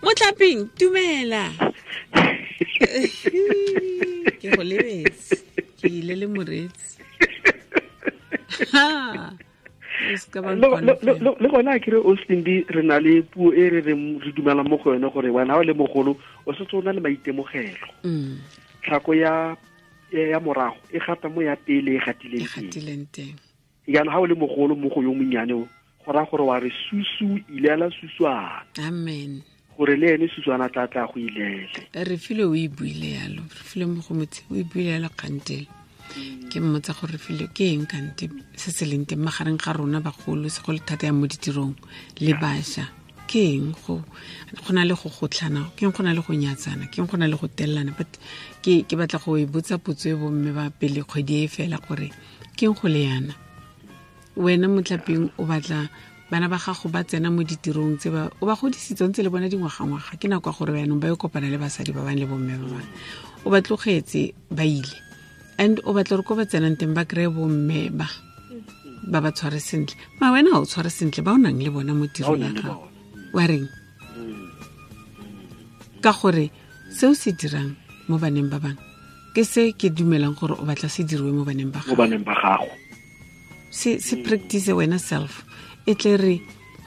Motlhaping, dumela. Ke go lebetse. Ke ile le moreetsi. Ha. O se ka ba nkona fela. Le gona a kere Oslimbi, re na le puo e re reng re dumelang mo go yone gore wena ha o le mogolo o setse o na le maitemogelo. Tlhako ya morago e gata mo ya pele e gatileng E gatileng teng. Jaanong ha o le mogolo mo go yo monnyane o, go raya gore wa re susu ilela suswana. Amen. Gore le ene suswana tla tla go ilele. Re file o e buile yalo, re file mo go motse o e buile yalo kgantele. Ke mmotsa gore re file ke eng kante se se leng teng magareng ga rona bagolo, segolo thata ya mo ditirong le bašwa. Ke eng go na le go gotlhana, ke eng go na le go nyatsana, ke eng go na le go tellana? But ke batla go e botsa potso e bomme ba pele kgwedi e fela gore ke eng go le yana? Wena motlhapeng o batla bana ba gago ba tsena mo ditirong tse ba o ba godisitse ntse le bona dingwaga-ngwaga, ke nako ya gore jaanong ba yo kopana le basadi ba bangwe le bomme ba bangwe, o ba tlogetse ba ile, and o batla gore ko ba tsenang teng ba kry-e bomme ba ba ba tshware sentle. Ma wena ga o tshware sentle ba o nang le bona mo tirong ya gago, wa reng? Ka gore seo se dirang mo baneng ba bangwe ke se ke dumelang gore o batla se diriwe mo baneng ba gago. Mo baneng ba gago. Se practice wena self, e tle re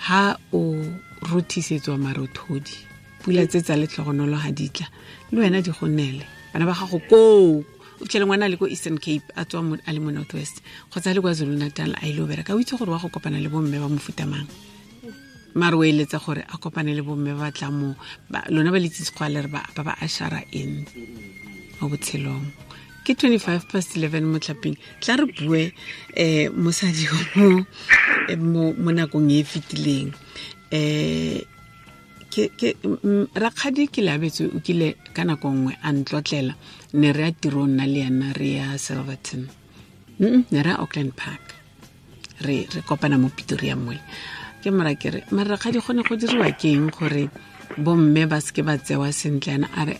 ha o rothisetswa marothodi, pula tse tsa letlhogonolo ha di tla, le wena di go nele. Bana ba gago koo, o fitlhele ngwana a le ko Eastern Cape, a tswa a le mo North West, kgotsa a le kwa Zulu Natal, a ile go bereka, o itse gore wa go kopana le bomme ba mofuta mang. Mare o eletsa gore a kopane le bomme ba tla mo, lona ba le itse sekgwa le re ba ba ashara in mo botshelong. Ke 11:25 motlhapeng. Tla re bue, mosadi mo nakong e e fetileng. Rakgadi ke Leabetswe o kile ka nako nngwe a ntlotlela, ne re ya tirong nna le ena, re ya Silverton. Ne re ya Auckland Park. Re kopana mo Pretoria mole. Ke mora ke re, mara rakgadi go ne go diriwa ke eng gore bomme ba seke ba tsewa sentle? Ena a re,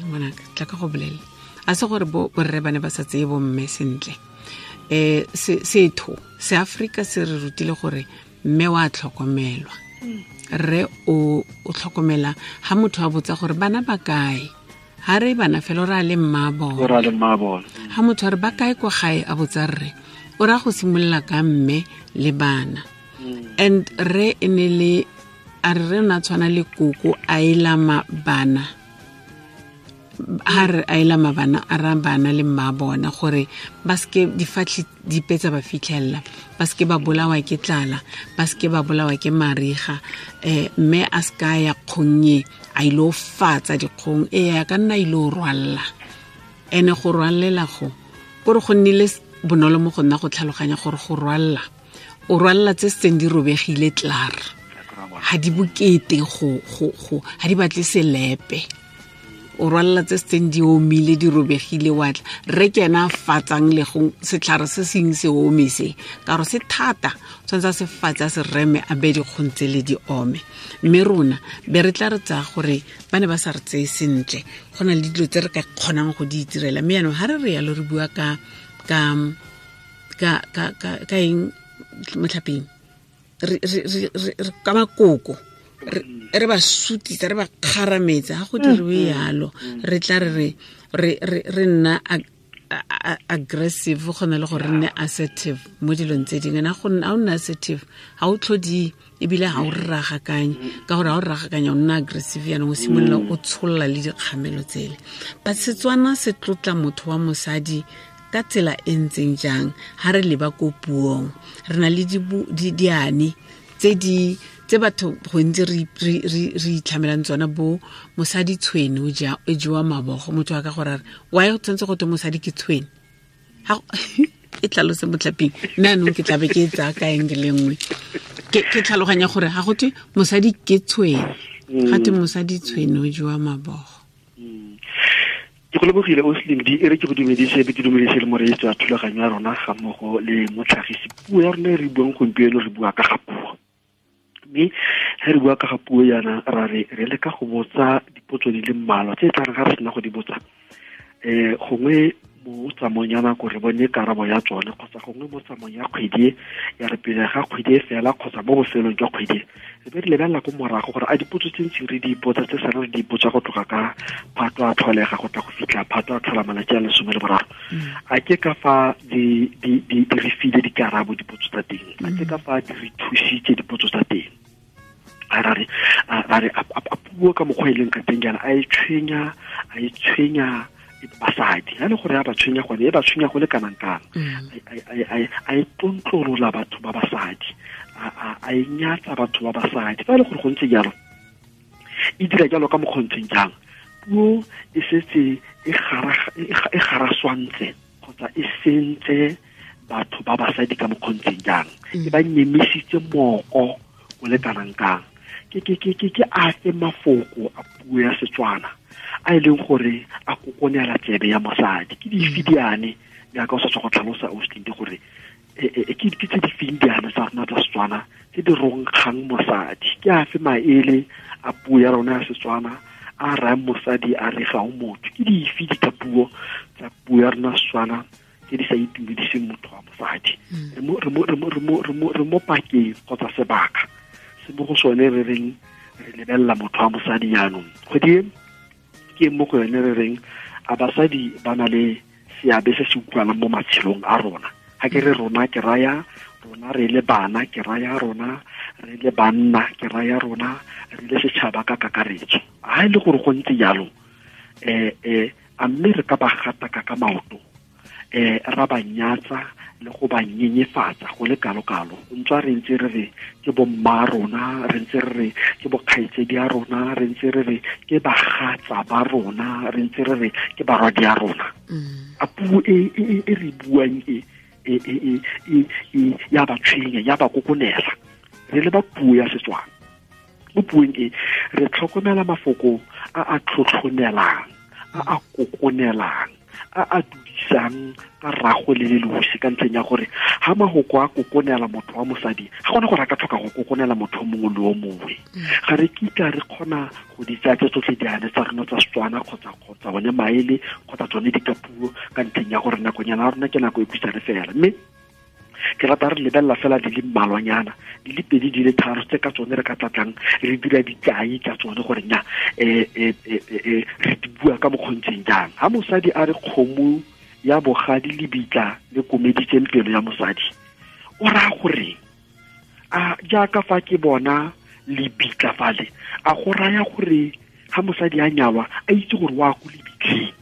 ngwanaka, tla ka go bolelela. A se gore borre ba ne ba sa tseye bomme sentle. Setho se Afrika se re rutile gore mme wa tlhokomelwa. Rre o tlhokomela ha motho a botsa gore bana ba kae, ha re bana fela o ra le mma bona. O ra le mma bona. Ha motho a re ba kae kwa gae a botsa rre, o ra go simolola ka mme le bana. And rre e ne le, a re re na tshwana le koko a elama bana. Ha re a elama bana, a ra bana le mma bona gore ba seke difatlhi dipe tsa ba fitlhella, ba seke ba bolawa ke tlala, ba seke ba bolawa ke mariga, mme a seka ya kgonnye a ile go fatsa dikgong, a ka nna ile go rwalla. Ene go rwallela go, kore go nnile bonolo mo go nna go tlhaloganya gore go rwalla, o rwalla tse setseng di robegile tlar, ha di bokete ha di batle selepe. O rwalla tse setseng di omile, di robegile, wa tla. Rre ke ena a fatsang le go setlhare se seng se ome se, ka gore se thata, o tshwanetse a se fatse, a se reme, a beye dikgong tse le di ome. Mme rona be re tla re tsaya gore ba ne ba sa re tseye sentle, go na le dilo tse re ka kgonang go di itirela. Mme jaanong ha re re yalo re bua ka eng motlhapeng? Re ka makoko, re ba sutisa, re ba kgarametsa, ha go diriwe yalo, re tla re nna aggressive, go na le gore re nne assertive mo dilong tse dingwe. Na go nna, ha o nna assertive, ha o tlhodi, ebile ha o rragakanye, ka gore ha o rragakanya o nna aggressive, jaanong o simolola o tsholola le dikgamelo tsele. But Setswana se tlotla motho wa mosadi ka tsela e ntseng jang? Ha re leba ko puong, re na le diane tse di, tse batho gontsi re itlhamelang tsona, bo mosadi tshwene o ja, o jewa mabogo. Motho a ka gore a re, why o tshwanetse go twe mosadi ke tshwene? Ha go-, e tlhalose motlhaping, nna anong ke tlabe ke e tsaya ka eng le nngwe. Ke tlhaloganya gore ha go twe mosadi ke tshwene, ga twe mosadi tshwene o jewa mabogo. Ke go lebogile o Slim D, e re ke go dumedise, be ke dumedise le moreetsi wa thulaganyo ya rona ga mmogo le motlhagisi. Puo ya rona e re buang gompieno, re bua ka ga puo. Mme ge re bua ka ga puo yana, ra re re leka go botsa dipotso di le mmalwa tse e tla reng ga re sena go di botsa, gongwe Mo tsamaong ya nako re bone karabo ya tsone, kgotsa gongwe mo tsamaong ya kgwedi ya re pele ga kgwedi e fela kgotsa mo bofelong jwa kgwedi re be re lebelela ko morago gore a dipotso tse ntsi re di ipotsa tse sala re di ipotsa go tloga ka Phato a tlholega go tla go fitlha Phato a tlhola malatsi a 13, a ke ka fa di re file dikarabo dipotso tsa teng, a ke ka fa di re thusitse dipotso tsa teng. A re a puo ka mokgwa e leng ka teng jaana a e tshwenya basadi, ha le gore ya ba tshwenya gone e ba tshwenya go le kanang kang, a e tlontlolola batho ba basadi, a e nyatsa batho ba basadi. Fa e le gore go ntse jalo, e dira jalo ka mokgontseng jang, puo e setse e garaswantse kgotsa e sentse batho ba basadi ka mokgontseng jang, e ba nyemisitse moko o le kanang kang. Ke afe mafoko a puo ya Setswana a e leng gore a kokonela tsebe ya mosadi, ke dife diane jaaka o sa tswa go tlhalosa Austin gore ke tse di feng diane tsa rona tsa Setswana tse di ronkgang mosadi, ke afe maele a puo ya rona ya Setswana a rayang mosadi a re ga o motho, ke dife dikapuo tsa puo ya rona Setswana tse di sa itumediseng motho wa mosadi. Re mo pakeng kgotsa sebaka se mo go sone re reng re lebelela motho wa mosadi jaanong. Kgwedi e ke mo go yone re reng a basadi ba na le seabe se se utlwalang mo matshelong a rona. Ha ke re rona ke raya rona re le bana, ke raya rona re le banna, ke raya rona re le setšhaba ka kakaretso. Ha e le gore go ntse jalo, a mme re ka ba gataka ka maoto, ra ba nyatsa le go ba nyenyefatsa go le kalo-kalo, ntswa re ntse re re ke bomma rona, re ntse re re ke bokgaitsedi a rona, re ntse re re ke bagatsa ba rona, re ntse re re ke barwadi a rona. A puo e re buang e ya ba tshwenya, ya ba kokonela. Re le ba puo ya Setswana, mo puong e re tlhokomela mafoko a a tlhotlhonelang, a a kokonelang, a a dudisang ka rago le lelosi, ka ntlheng ya gore ha mahoko a kokonela motho wa mosadi ga gona gore a ka tlhoka go kokonela motho o mongwe le o mongwe. Ga re kitla re kgona go di tsaya tse tsotlhe diane tsa rona tsa Setswana kgotsa bone maele kgotsa tsone dikapuo, ka ntlheng ya gore nakonyana ya rona ke nako e khutshwane fela. Mme ke rata re lebelela fela di le mmalwanyana, di le pedi, di le tharo tse ka tsone re ka tlatlang re dira dikai ka tsone gore nya re di bua ka mokgontseng jang. Ha mosadi a re kgomo ya bogadi lebitla le komeditseng pelo ya mosadi, o raya gore a jaaka fa ke bona lebitla fale, a go raya gore ha mosadi a nyalwa a itse gore wa go lebitleng,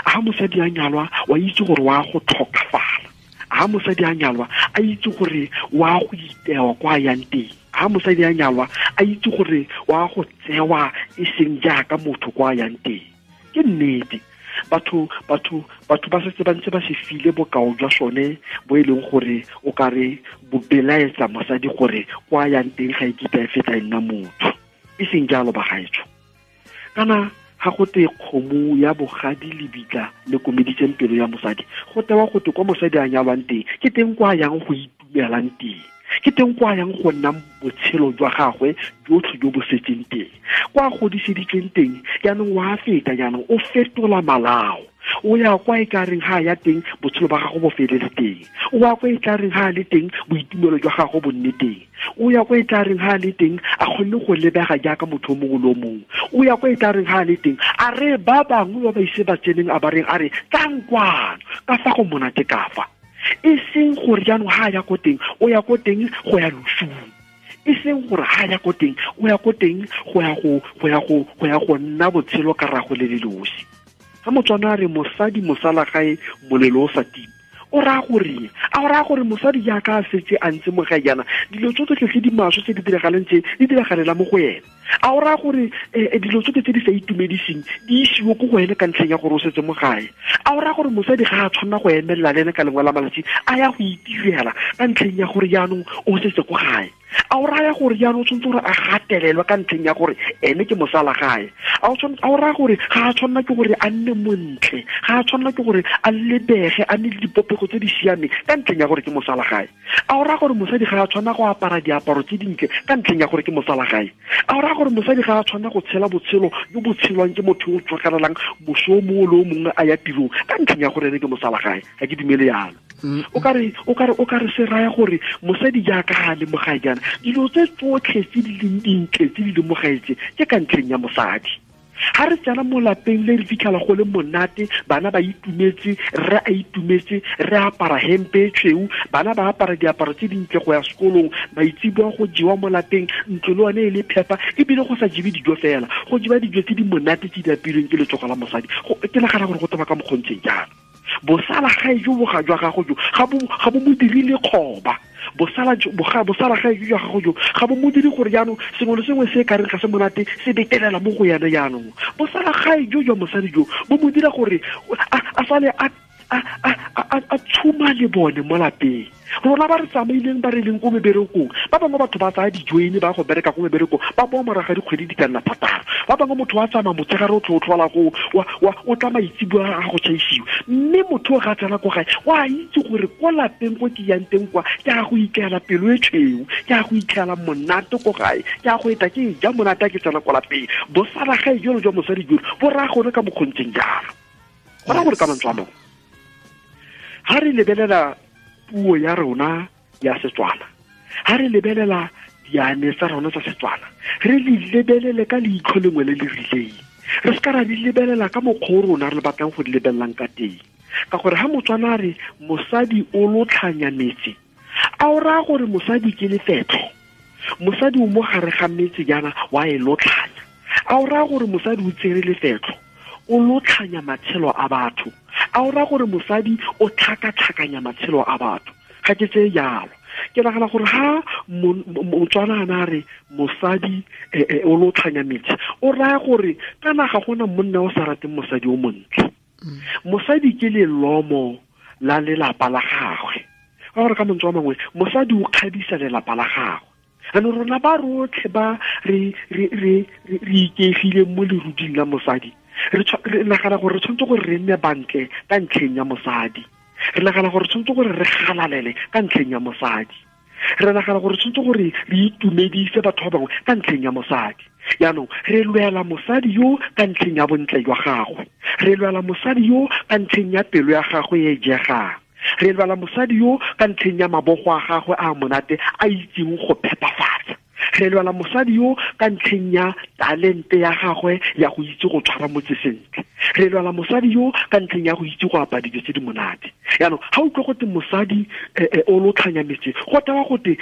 ha mosadi a nyalwa wa itse gore wa go tlhokafala, ha mosadi a nyalwa a itse gore wa go itewa kwa yang teng, ha mosadi a nyalwa a itse gore wa go tsewa e seng jaaka motho kwa yang teng. Ke nnete, batho ba setse ba ntse ba se file bokao jwa sone bo e leng gore o ka re bo belaetsa mosadi gore kwa yang teng ga e kitla e feta e nna motho. E seng jalo bagaetsho. Kana ga go te kgomo ya bogadi lebitla le komeditseng pelo ya mosadi, go tewa go te kwa mosadi a nyalwang teng ke teng kwa yang go itumelang teng, ke teng kwa yang go nna botshelo jwa gagwe jotlhe jo bo setseng teng, kwa godiseditsweng teng. Jaanong wa feta, jaanong o fetola malao, o ya kwa e ka reng ha ya teng botshelo ba gago bo felele teng, o ya kwa e tla reng ha le teng boitumelo jwa gago bo nne teng, o ya kwa e tla reng ha le teng a kgonne go lebega jaaka motho o mongwe le o mongwe, o ya kwa e tla reng ha le teng a re ba bangwe ba ba ise ba tseneng a ba reng a re tlang kwano ka fa go monate ka fa. E seng gore jaanong ha ya ko teng o ya ko teng go ya losung, e seng gore ha ya ko teng o ya ko teng go ya go nna botshelo ka rago le lelosi. Ha Motswana a re mosadi mosala gae molelo o sa tima, o raya gore a o raya gore mosadi jaaka a setse a ntse mo gae jaana dilo tsotlhe tse di maswe tse di diragalang tse di diragalela mo go ene, a o raya gore dilo tsotlhe tse di sa itumediseng di isiwe ko go ene ka ntlheng ya gore o setse mo gae, a o raya gore mosadi ga a tshwanela go emelela le ene ka lengwe la malatsi a ya go itirela ka ntlheng ya gore jaanong o setse ko gae, A o raya gore jaanong o tshwanetse gore a gatelelwe ka ntlheng ya gore ene ke mosala gae? A o raya gore ga a tshwanela ke gore a nne montle, ga a tshwanela ke gore a lebege a nne le dipopego tse di siameng ka ntlheng ya gore ke mosala gae? A o raya gore mosadi ga a tshwanela go apara diaparo tse dintle ka ntlheng ya gore ke mosala gae? A o raya gore mosadi ga a tshwanela go tshela botshelo jo bo tshelwang ke motho yo o tswakalelang moso o mongwe le o mongwe a ya tirong ka ntlheng ya gore ene ke mosala gae? Ga ke dumele yalo. O ka re se raya gore mosadi jaaka ga a le mo gae jaana, dilo tse tsotlhe tse di leng dintle tse di leng mo gae tse ke ka ntlheng ya mosadi. Ga re tsena mo lapeng le re fitlhela go le monate, bana ba itumetse, rre a itumetse, re apara hempe e tshweu, bana ba apara diaparo tse dintle go ya sekolong, maitseboa go jewa mo lapeng, ntlo le one e le phepa, ebile go sa jewe dijo fela, go jewa dijo tse di monate tse di apilweng ke letsogo la mosadi. Ke nagana gore go taba ka mokgontseng jalo. Bosala gae jo boga jwa gago jo ga bo mo dirile kgoba. Bosala gae jo jwa gago jo ga bo mo dire gore jaanong sengwe le sengwe se ka reng ga se monate se betelela mo go yone. Jaanong bosala gae jo jwa mosadi jo bo mo dira gore a sale a tshuma le bone mo lapeng. Rona ba re tsamaileng, ba re leng ko meberekong, ba bangwe batho ba tsaya dijoine ba go bereka ko meberekong, ba boa moraga dikgwedi di ka nna 6. Ba bangwe motho wa tsamaya motshegare o tlho o tlhola go o tla maitseboa a go tšhaisiwa, mme motho o ga tsena ko gae wa itse gore ko lapeng ko ke yang teng kwa ke a go itlela pelo e tshweu, ke a go itlela monate ko gae, ke a go eta ke ja monate a ke tsena ko lapeng. Bosala gae jalo jwa mosadi jolo bo raya gore ka mokgontseng jalo, go raya gore ka mantswe a mangwe, ga re lebelela puo ya rona ya Setswana, ga re lebelela diane tsa rona tsa Setswana, re di lebelele ka leitlho lengwe le le rileng. Re se ka ra di lebelela ka mokgwa o rona re batlang go di lebelelang ka teng, ka gore ga Motswana a re mosadi o lotlhanya metse, a o raya gore mosadi ke lefetlho, mosadi o mo gare ga metse jaana wa e lotlhanya? A o raya gore mosadi o tsere lefetlho, o lotlhanya matshelo a batho? A o raya gore mosadi o tlhakatlhakanya matshelo a batho? Ga ke tseye jalo. Ke nagana gore ha Motswana a na re mosadi o lotlhanya metse, o raya gore kana ga gona monna o sa rateng mosadi o montle. Mosadi ke lelomo la lelapa la gagwe. Ka gore ka mantswe a mangwe, mosadi o kgabisa lelapa la gagwe. Jaanong rona ba rotlhe ba re ikeegileng mo leruding la mosadi, re nagana gore re tshwanetse gore re nne bantle ka ntlheng ya mosadi. Re nagana gore re tshwanetse gore re galalele ka ntlheng ya mosadi. Re nagana gore re tshwanetse gore re itumedise batho ba bangwe ka ntlheng ya mosadi. Jaanong re lwela mosadi yo ka ntlheng ya bontle jwa gagwe, re lwela mosadi yo ka ntlheng ya pelo ya gagwe e jegang, re lwela mosadi yo ka ntlheng ya mabogo a gagwe a monate a itseng go phepafatsa, re lwela mosadi yo ka ntlheng ya talente ya gagwe ya go itse go tshwara motse sentle, re lwela mosadi yo ka ntlheng ya go itse go apaya dijo tse di monate. Jaanong ga utlwe gote mosadi o lotlhanya metse, go tewa gote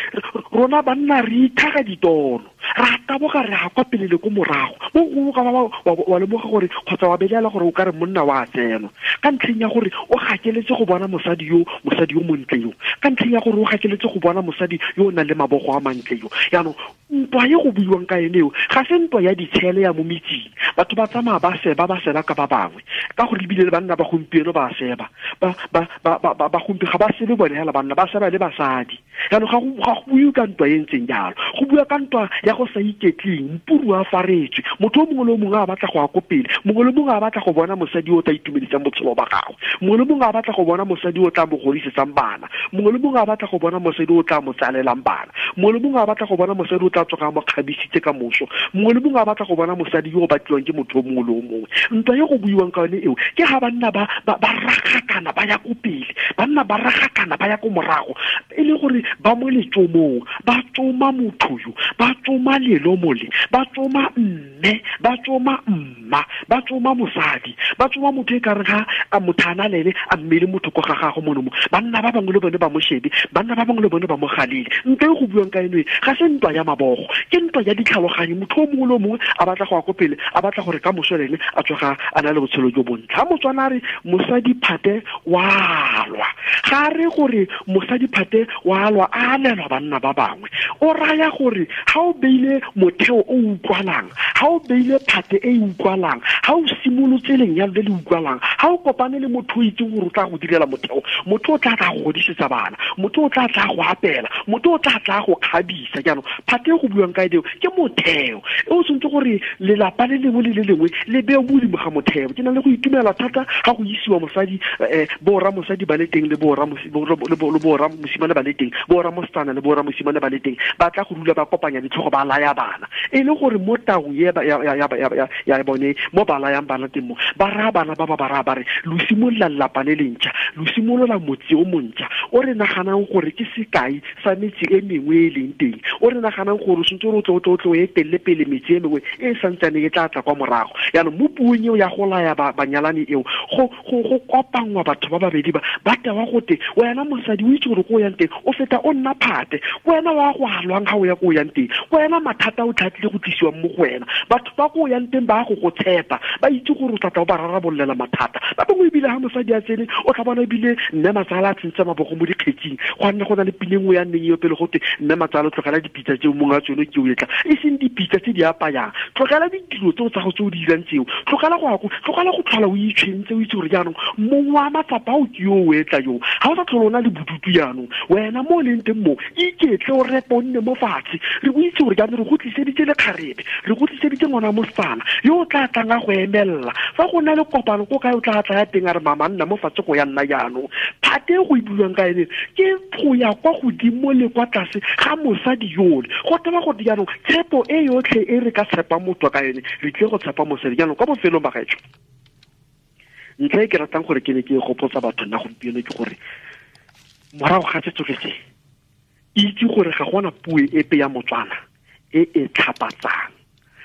rona banna re ithaga ditono, ra taboga re ya kwa pele le ko morago. Mo gongwe ka wa lemoga gore kgotsa wa belaela gore o ka re monna wa tsenwa ka ntlheng ya gore o gakeletse go bona mosadi yo, mosadi yo montle yo, ka ntlheng ya gore o gakeletse go bona mosadi yo o nang le mabogo a mantle yo. Jaanong ntwa e go buiwang ka ene eo ga se ntwa ya ditshele ya mo metsing, batho ba tsamaya ba seba, ba seba ka ba bangwe, ka gore ebile le banna ba gompieno ba seba, ba gompieno ga ba sebe bone hela banna, ba seba le basadi. Jaanong ga go buiwe ka ntwa e ntseng jalo, go bua ka ntwa ya go sa iketleng, mpuru a faretswe, motho o mongwe le o mongwe a batla go ya ko pele, mongwe le mongwe a batla go bona mosadi o tla itumedisang botshelo ba gagwe, mongwe le mongwe a batla go bona mosadi o tla mo godisetsang bana, mongwe le mongwe a batla go bona mosadi o tla mo tsalelang bana, mongwe le mongwe a batla go bona mosadi o tla tsoga mo kgabisitse ka moso, mongwe le mongwe a batla go bona mosadi yo o batliwang ke motho o mongwe le o mongwe. Ntwa e go buiwang ka yone eo ke ga banna ba ragakana ba ya ko pele, banna ba ragakana ba ya ko morago, e le gore ba mo letsomong, ba tsoma motho yo, ba tsoma lelomo le, ba tsoma mme, ba tsoma mma, ba tsoma mosadi, ba tsoma motho e ka re ga a motho a na le ene a mmele motho ko ga gagwe mono mo. Banna ba bangwe le bone ba mo shebe, banna ba bangwe le bone ba mo galele. Ntwa e go buiwang ka eno e ga se ntwa ya mabogo, ke ntwa ya ditlhaloganyo. Motho o mongwe le o mongwe a batla go ya ko pele, a batla gore ka moso le ene a tsoga a na le botshelo jo bontle. Ha Motswana a re mosadi phate wa lwa, ga re gore mosadi phate wa alwa a alelwa banna ba bangwe. O raya gore ga o beile motheo o utlwalang, ga o beile phate e utlwalang, ga o simolotse lenyalo le le utlwalang, ga o kopane le motho o itseng gore o tla go direla motheo, motho o tla tla go godisetsa bana, motho o tla tla go apela, motho o tla tla go kgabisa. Jaanong phate e go buang ka eo ke motheo e o tshwanetse gore lelapa le lengwe le le lengwe le beo mo godimo ga motheo. Ke na le go itumela thata ga go isiwa mosadi, borra mosadi ba le teng le borra mosimane ba le teng, borra mosetsana le borra mosimane ba le teng, ba tla go dula ba kopanya ditlhogo ba laya bana, e le gore mo taung ya bone mo ba layang bana teng mo ba raya bana ba ba raya ba re lo simolola lelapa le lentšha, lo simolola motse o montšha o re naganang gore ke sekai sa metse e mengwe e leng teng, o re naganang gore o sentse o tle o etelele pele metse e mengwe e santsaneng e tla tla kwa morago. Jaanong mo puong eo ya go laya banyalani eo go kopanngwa batho ba babedi ba ba tewa gote wena mosadi o itse gore ko o yang teng o feta o nna phate, wena wa go alwang ga o ya ko o yang teng, wena mathata o tlhatlile go tlisiwang mo go wena, batho ba ko o yang teng ba go tshepa, ba itse gore o tla tla o ba rarabololela mathata. Ba bangwe ebile ga mosadi a tsene o tla bona ebile mme matsala a tsentse mabogo mo dikgetsing, go nne go na le pine nngwe ya nneng eo pele gote mme matsala o tlogela dipitsa tseo mongwe a tsone ke o etla, e seng dipitsa tse di apayang, tlogela ditiro tseo tsa go tse o di dirang tseo, tlogela go tlhola o itshwentse, o itse gore jaanong mongwe wa matsapa ao ke yo o etla yo, ga o sa tlhole o na le bodutu jaanong, wena mo o leng teng mo iketle o repa o nne mo fatshe, re o itse gore jaanong re go tliseditse lekgarebe, re go tliseditse ngwana mosetsana yo o tla tlang a go emelela fa go na le kopano ko kae o tla tla ya teng a re mama nna mo fatshe go ya nna jaanong. Phate e go e buiwang ka ene ke go ya kwa godimo le kwa tlase ga mosadi yole, go teba gore jaanong tshepo e yotlhe e re ka tshepang motho ka ene re tlile go tshepa mosadi. Jaanong kwa bofelong ba gaetsho, ntlha e ke ratang gore ke ne ke gopotsa batho nna gompieno ke gore morago ga se tsotlhe se, itse gore ga gona puo epe ya Motswana e e tlhapatsang,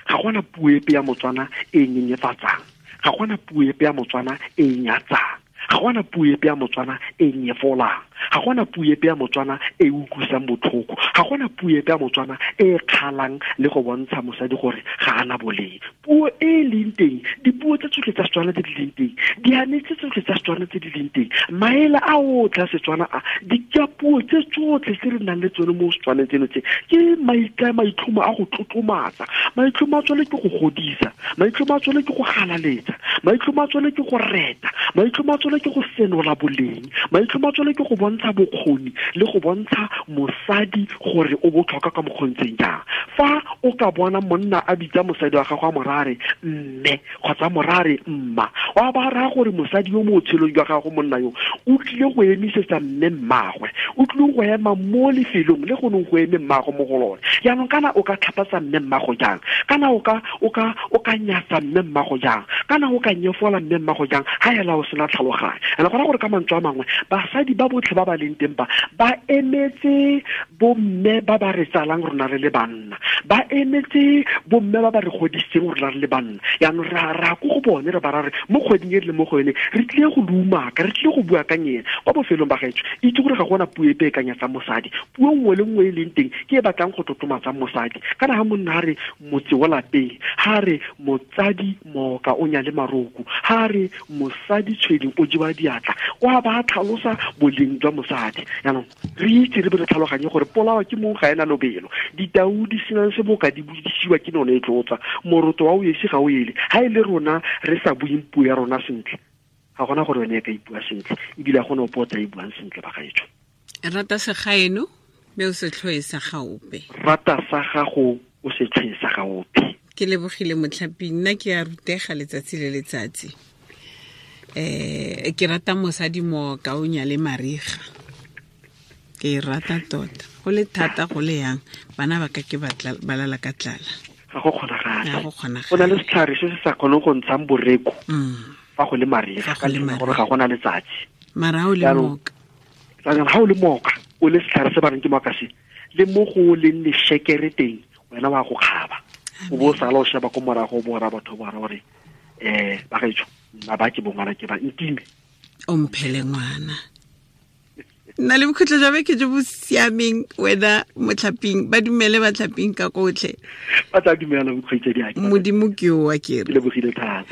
ga gona puo epe ya Motswana e nyenyefatsang, ga gona puo epe ya Motswana e nyatsang, ga gona puo epe ya Motswana e nyefolang, ga gona puo epe ya Motswana e utlwisang botlhoko, ga gona puo epe ya Motswana e kgalang le go bontsha mosadi gore ga ana boleng. Puo e leng teng, dipuo tse tsotlhe tsa Setswana tse di leng teng, diane tse tsotlhe tsa Setswana tse di leng teng, maele a otlhe a Setswana a, dikapuo tse tsotlhe tse re nang le tsone mo Setswaneng tseno tse ke maitlhomo a go tlotlomatsa, maitlhomo a tsone ke go godisa, maitlhomo a tsone ke go galaletsa, maitlhomo a tsone ke go reta, maitlhomo a tsone ke go senola boleng, maitlhomo a tsone ke go bontsha bokgoni le go bontsha mosadi gore o botlhokwa ka mokgontseng jang. Fa o ka bona monna a bitsa mosadi wa gagwe a morare mme kgotsa morare mma, wa ba raya gore mosadi yo mo botshelong jwa gago monna yo o tlile go emisetsa mme mmagwe, o tlile go ema mo lefelong le go neng go eme mmago mo go lone. Jaanong kana o ka tlhapatsa mme mmago jang, kana o ka nyatsa mme mmago jang, kana o ka nyefola mme mmago jang ga ela o sena tlhaloganyo. Ene gona gore ka mantswe a mangwe basadi ba botlhe ba ba leng teng ba ba emetse bomme ba ba re tsalang rona re le banna, ba emetse bomme ba ba re godisitseng rona re le banna. Jaanong ra ko go bone re ba ra re mo kgweding e re le mo go yone re tlile go lumaka, re tlile go bua ka nyena. Kwa bofelong ba gaetsho, itse gore ga gona puo epe e ka nyatsang mosadi, puo nngwe le nngwe e leng teng ke e batlang go tlotlomatsang mosadi. Kana ga monna a re motse wa lapeng, ga re motsadi mooka o nyale maroko, ga re mosadi tshweding o jewa diatla, wa ba tlhalosa boleng jwa mosadi. Jaanong re itse re be re tlhaloganye gore polao ke mong ga ena lobelo, ditau di senang seboka di bodisiwa ke none e tlotsa, moroto wa o esi ga o ele. Ha e le rona re sa buing puo ya rona sentle, ga gona gore yone e ka ipua sentle, ebile ga gona ope o tla e buang sentle ba gaetsho. Rata segaeno mme o se tlhoe sa gaope, rata sa gago o se tlhoe sa gaope. Ke lebogile motlhaping, nna ke a rutega letsatsi le letsatsi. Ke rata mosadi mooka o nyale mariga, ke e rata tota, go le thata go le yang bana ba ka ke ba lala ka tlala. Ga go kgonagale, go na le setlhare se se sa kgoneng go ntshang boreko fa go le mariga, ka gore ga gona letsatsi. Mara o le mooka, ga o le mooka o le setlhare se ba reng ke mooka se, le mo go leng lešekere teng wena wa go kgaba, o bo o sala o sheba ko morago o bo ra batho ba gore ba gaetsho nna ba ke bongwana ke ba ntime o mphele ngwana. Nna le bokhutlo jwa beke jo bo siameng wena motlhaping, ba dumele batlhaping ka kotlhe, ba tla dumela bokgaitsedi. Modimo ke o wa ke re lebogile thata.